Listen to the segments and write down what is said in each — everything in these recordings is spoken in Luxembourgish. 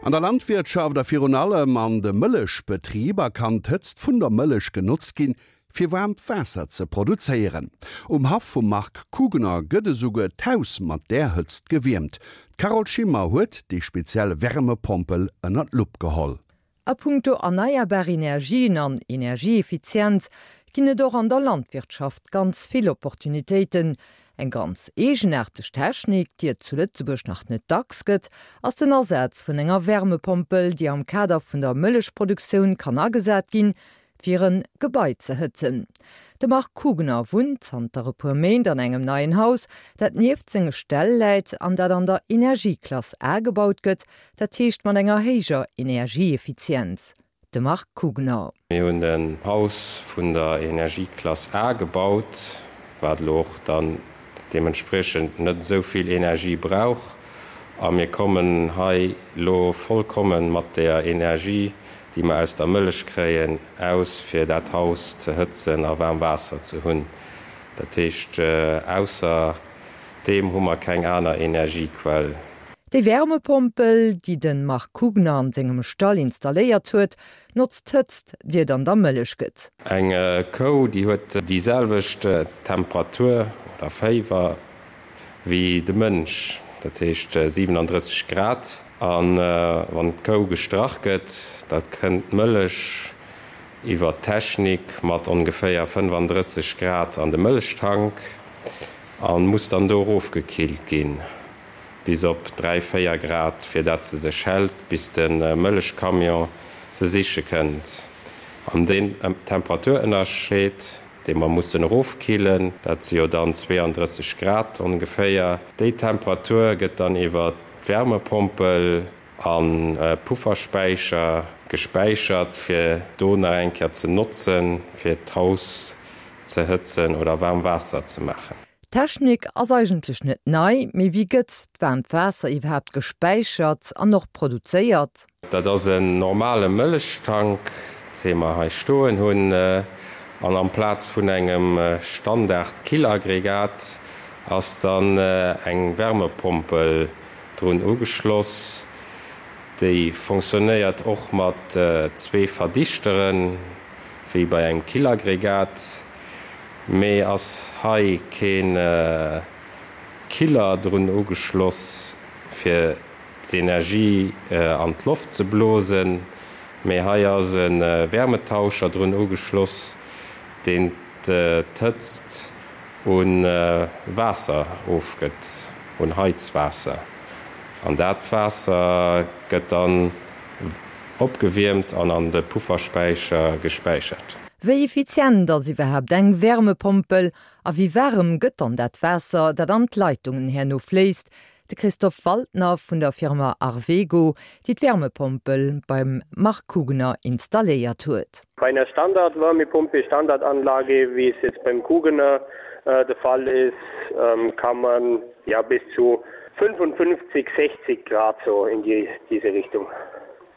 An der Landwirtschaft a virun allem an de Mëllechbetriber kann d'Hëtzt vun der Mëllech genotzt ginn, fir waarmt Waasser ze produzéieren. Um Haff vum Marc Kugener gëtt esouguer d'Haus mat där Hëtzt gewiermt. D'Carole Schimmer huet déi speziell Wärmepompel ënner d'Lupp geholl. A punkto erneierbar Energien an Energieeffizienz ginn et och an der Landwirtschaft ganz vill Opportunitéiten. Eng ganz eegenaarteg Technik, déi et zu Lëtzebuerg nach net dacks gëtt, ass den Asaz vun enger Wärmepompel, déi am Kader vun der Mëllechproduktioun kann agesat ginn, fir en Gebai ze hëtzen. De Marc Kugener wunnt zanter e puer Méint an engem neien Haus, dat nieft senge Ställ läit an dat an der Energieklass A gebaut gëtt, dat heescht mat enger héijer Energieeffizienz. De Marc Kugener. Mir hunn en Haus vun der Energieklass A gebaut, wat elo och dann deementspriechend net esou vill Energie brauch. A mir kommen hei elo vollkommen mat der Energie, déi mer aus der Mëllech kréien, aus, fir dat Haus ze hëtzen a waarm Waasser ze hunn. Dat heescht, ausser deem hu mer keng aner Energiequell. Déi Wärmepompel, déi de Marc Kugner an sengem Stall installéiert huet, notzt d'Hëtzt, déi et an der Mëllech gëtt. Eng Kou, déi huet déi selwecht Temperatur oder Féiwer wéi de Mënsch, dat heescht 37 Grad. A wann d'Kou gestrach gëtt, da kënnt d'Mëllech iwwer d'Technik mat ongeféier 35 Grad an de Mëllechtank a muss dann do erofgekillt ginn bis op 3, 4 Grad, fir dat se sech hält, bis de Mëllechcamion se siche kënnt. An deen Temperaturënnerscheed, dee mer mussen erofkillen, dat si jo dann 32 Grad ongeféier, déi Temperatur gëtt dann iwwer d'Wärmepompel a Pufferspäicher gespäichert, fir do nach eng Kéier ze notzen, fir d'Haus ze hëtzen oder waarm Waasser ze maachen. D'Technik ass eigentlech net nei, mee wéi gëtt d'waarmt Waasser iwwerhaapt gespäichert an och produzéiert? Dat ass en normale Mëllechtank, dee mer hei stoen hunn. An amplaz vun engem Standard-Killaggregat ass dann eng Wärmepompel drun ugeschloss. Déi fonctionnéiert och mat zwee Verdichteren, wéi bei engem Killaggregat, mee ass hei kee Killer drun ugeschloss, fir d'Energie an d'Loft ze blosen, mee hei ass e Wärmetauscher drun ugeschloss, deen d'Hëtzt u Waasser ofgëtt, un Heizwaasser. An dat Waasser gëtt dann opgewiermt an an de Pufferspäicher gespäichert. Wéi effizient ass iwwerhaapt eng Wärmepompel a wéi waarem gëtt dann dat Waasser, dat an d'Leitungen herno fléisst? De Christophe Waldner vun der Firma Arvego, déi d'Wärmepompel beim Marc Kugener installéiert huet. Bei einer Standardwärmepumpe, Standardanlage, wie es jetzt beim Kugener der Fall ist, kann man ja bis zu 55, 60 Grad so in die, diese Richtung.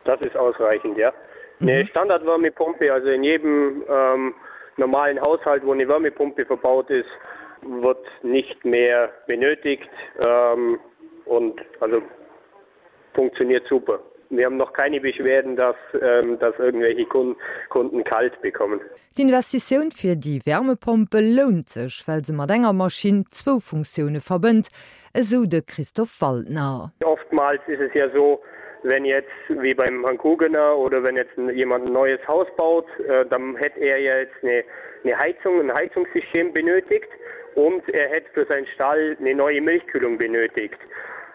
Das ist ausreichend, ja. Eine Standardwärmepumpe, also in jedem ähm, normalen Haushalt, wo eine Wärmepumpe verbaut ist, wird nicht mehr benötigt ähm, und also funktioniert super. Wir haben noch keine Beschwerden, dass, ähm, dass irgendwelche Kunden, Kunden kalt bekommen. D'Investitioun fir déi Wärmepompel lount sech, well se mat enger Maschinn zwou Funktioune verbënnt, esou de Christophe Waldner. Oftmals ist es ja so, wenn jetzt wie beim Herrn Kugener oder wenn jetzt jemand ein neues Haus baut, dann hätt er ja jetzt eine, eine Heizung, ein Heizungssystem benötigt und er hätt für seinen Stall eine neue Milchkühlung benötigt.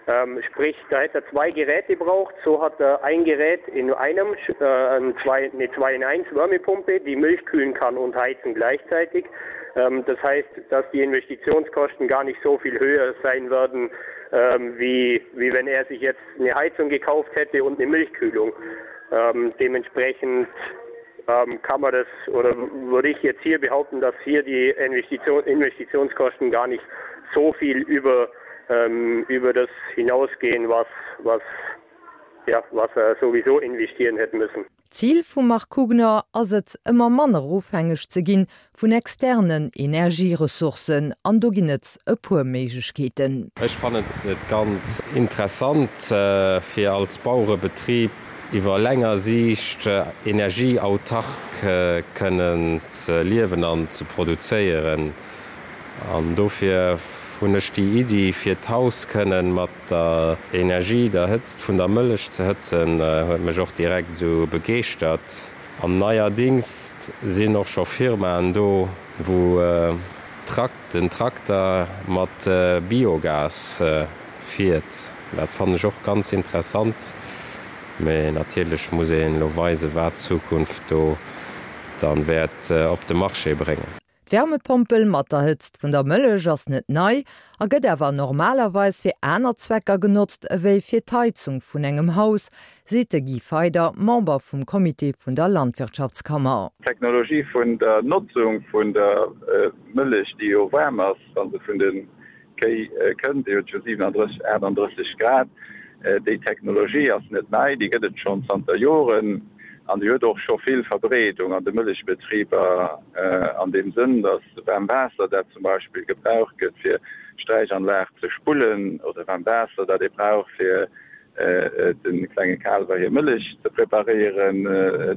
Ähm, sprich, da hätte er zwei Geräte braucht, so hat er ein Gerät in einem äh, zwei, eine 2 in 1 Wärmepumpe, die Milch kühlen kann und heizen gleichzeitig. Ähm, das heißt, dass die Investitionskosten gar nicht so viel höher sein werden, ähm, wie, wie wenn er sich jetzt eine Heizung gekauft hätte und eine Milchkühlung. Ähm, dementsprechend ähm, kann man das oder würde ich jetzt hier behaupten, dass hier die Investition, Investitionskosten gar nicht so viel über, ähm, über das hinausgehen, was, was, ja, was er sowieso investieren hätten müssen. D'Zil vum Marc Kugner ass et, ëmmer manner ofhängeg ze ginn vun externen Energieressourcen. An do ginn et e puer Méiglechkeeten. Ech fannen et ganz interessant, fir als Bauerebetrib iwwer länger Siicht energieautark kënnen ze liewen an ze produzéieren. An dofir hunn ech déi Iddi, fir d'Haus kënnen mat der Energie, der Hëtzt vun der Mëllech ze hëtzen, huet mech och direkt esou begeeschtert. An neierdings sinn och scho Firmaen do, wou den Trakter mat Biogas fiert. Dat fannen ech och ganz interessant. Mee natierlech muss een elo weisen, wat d'Zukunft do dann wäert op de Marché bréngen. D'Wärmepompel mat der Hëtzt vun der Mëllech ass net nei a gëtt awer normalerweis fir aner Zwecker genotzt ewéi fir d'Heizung vun engem Haus, seet de Guy Feyder, Member vum Comité vun der Landwirtschaftskammer. D'Technologie vun der Notzung vun der Mëllech, déi jo waarm ass, wa se vun de Kéi kënnt, déi huet jo 37, 38 Grad. Déi Technologie ass net nei, déi gëtt et schonn zanter Joren an déi huet och scho vill Verbreedung an de Mëllechbetriber an deem Sënn, datt waarm Waasser, dat zum Beispill gebraucht gëtt fir d'Sträichanlag ze spullen, oder waarm Waasser, dat ee brauch fir de klenge Kaalwer hir Mëllech ze preparéieren.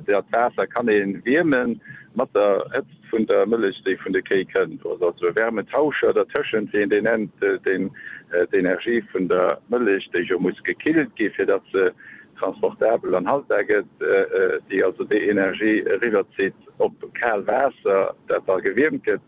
Dat Waasser kann ee wierme mat der Hëtzt vun der Mëllech, déi vun de Kéi kënnt. Do ass also e Wärmetauscher dertëschent, wéi een deen nennt, deen d'Energie vun der Mëllech, déi jo muss gekillt gi fir datt se transportabel an haltbar gëtt, déi also déi Energie eriwwerzitt op kal Waasser, dat da gewiermt gëtt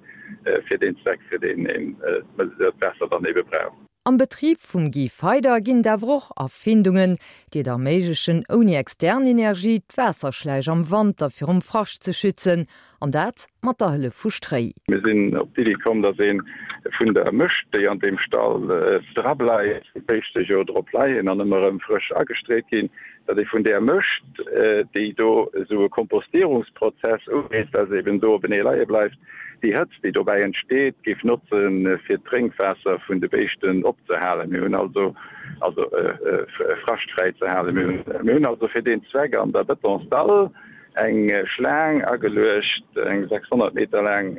fir deen Zweck, fir deen een dat Waasser dann ebe brauch. Am Betrib vum Guy Feyder ginn et awer och Erfindungen, déi et erméiglechen, ouni extern Energie d'Waasserschläich am Wanter virum Frascht ze schützen, an dat mat der Hëllef vu Stréi. Mir sinn op d'Iddi komm, datt ee vun der Mëscht, déi an deem Stall drableift, wou d'Béischte jo drop leien an ëmmer erëm frësch agestreet ginn, datt ee vun där Mëscht, déi do esou e Kompostierungsprozess ugeet, well se eben do openee leie bleift, Déi Hëtzt, déi dobäi entsteet, géif notzen, fir d'Drénkwaasser vun de Béischten opzehalen. Mir hunn also, also fraschtfräi ze halen. Mir hunn also fir deen Zweck an der Betonsdall eng Schlaang ageluecht, eng 600 Meter laang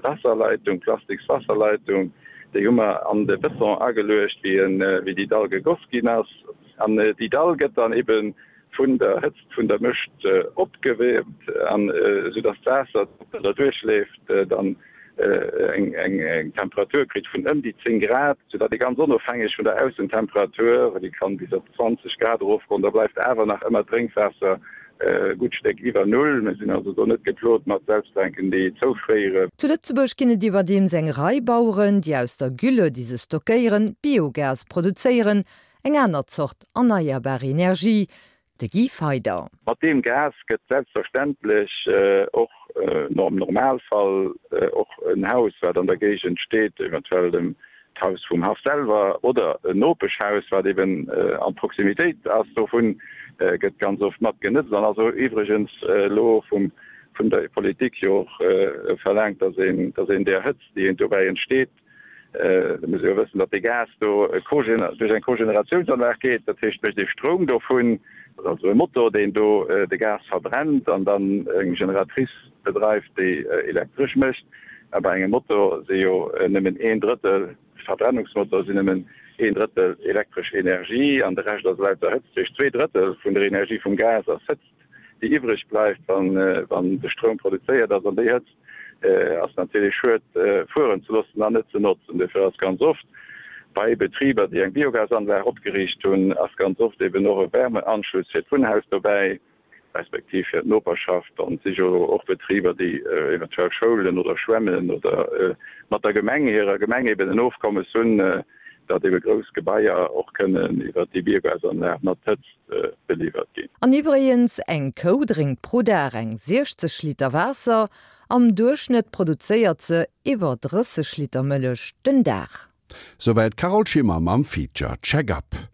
Wasserleitung, plastiks Wasserleitung. Déi hu mer an de Beton ageluecht, wéi déi Dall gegoss ginn ass. An déi Dall gëtt dann ebe vun der Hëtzt vun der Mëscht opgewiermt an esou dass d'Waasser, dat derduerch leeft, dann eng Temperatur kritt vun ëm déi 10 Grad, sou datt ee ganz onofhängeg vun der Aussentemperatur, déi kann bis op 20 Grad erofgoen, da bleift awer nach ëmmer d'Drénkwaasser e gutt Stéck iwwer Null. Mir sinn also do net geplot mat Selbsttränken, déi zoufréieren. Zu Lëtzebuerg ginn et iwwerdeems eng Rei Baueren, déi aus der Gülle, déi se stockéieren, Biogas produzéieren. Eng aner Zort erneierbar Energie, de Guy Feyder. Mat deem Gas gëtt selbstverständlech och am Normalfall och en Haus, wat an der Géigend steet, eventuell dem d'Haus vum Haff selwer oder en Nopeschhaus, wat eben an Proximitéit ass dovun, gëtt ganz oft mat genëtzt an ass iwwregens elo vum vun der Politik jo och verlaangt, dass een, dass een där Hëtzt, déi dobäi entsteet, Da muss ee jo wëssen, datt dee Gas do duerch eng Kogeneratiounsanlag geet. Dat heescht, mécht ee Stroum dovun. Dat ass also e Motor, deen do de Gas verbrennt an dann eng Generatrice bedreift, déi Elektresch mécht. A bei engem Motor si jo nëmmen een Drëttel, Verbrennungsmotor, sinn nëmmen een Drëttel elektresch Energie an de Rescht ass lauter Hëtzt. Dat heescht, 2 Drëttel vun der Energie vum Gas ass Hëtzt. déi iwwreg bleift, wann de Stroum produzéiert ass, an déi Hëtzt ass natierlech schued fueren ze loossen an net ze notzen. Dofir ass ganz oft bei Betriber, déi eng Biogasanlag opgeriicht hunn, ass ganz oft eben och e Wärmeanschluss fir d'Wunnhaus dobäi, respektiv fir d'Noperschaft. An et si jo och Betriber, déi eventuell Schoulen oder Schwämmen oder mat der Gemeng, hirer Gemeng eben en Ofkommes hunn, datt ebe grouss Gebaier och kënnen iwwert déi Biogasanlag mat Hëtzt beliwwert ginn. An iwwregens, eng Kou drénkt pro Dag eng 60 Liter Waasser, am Duerchschnëtt produzéiert se iwwer 30 Liter Mëllech den Dag. Souwäit d'Carole Schimmer mam Feature Check-Up.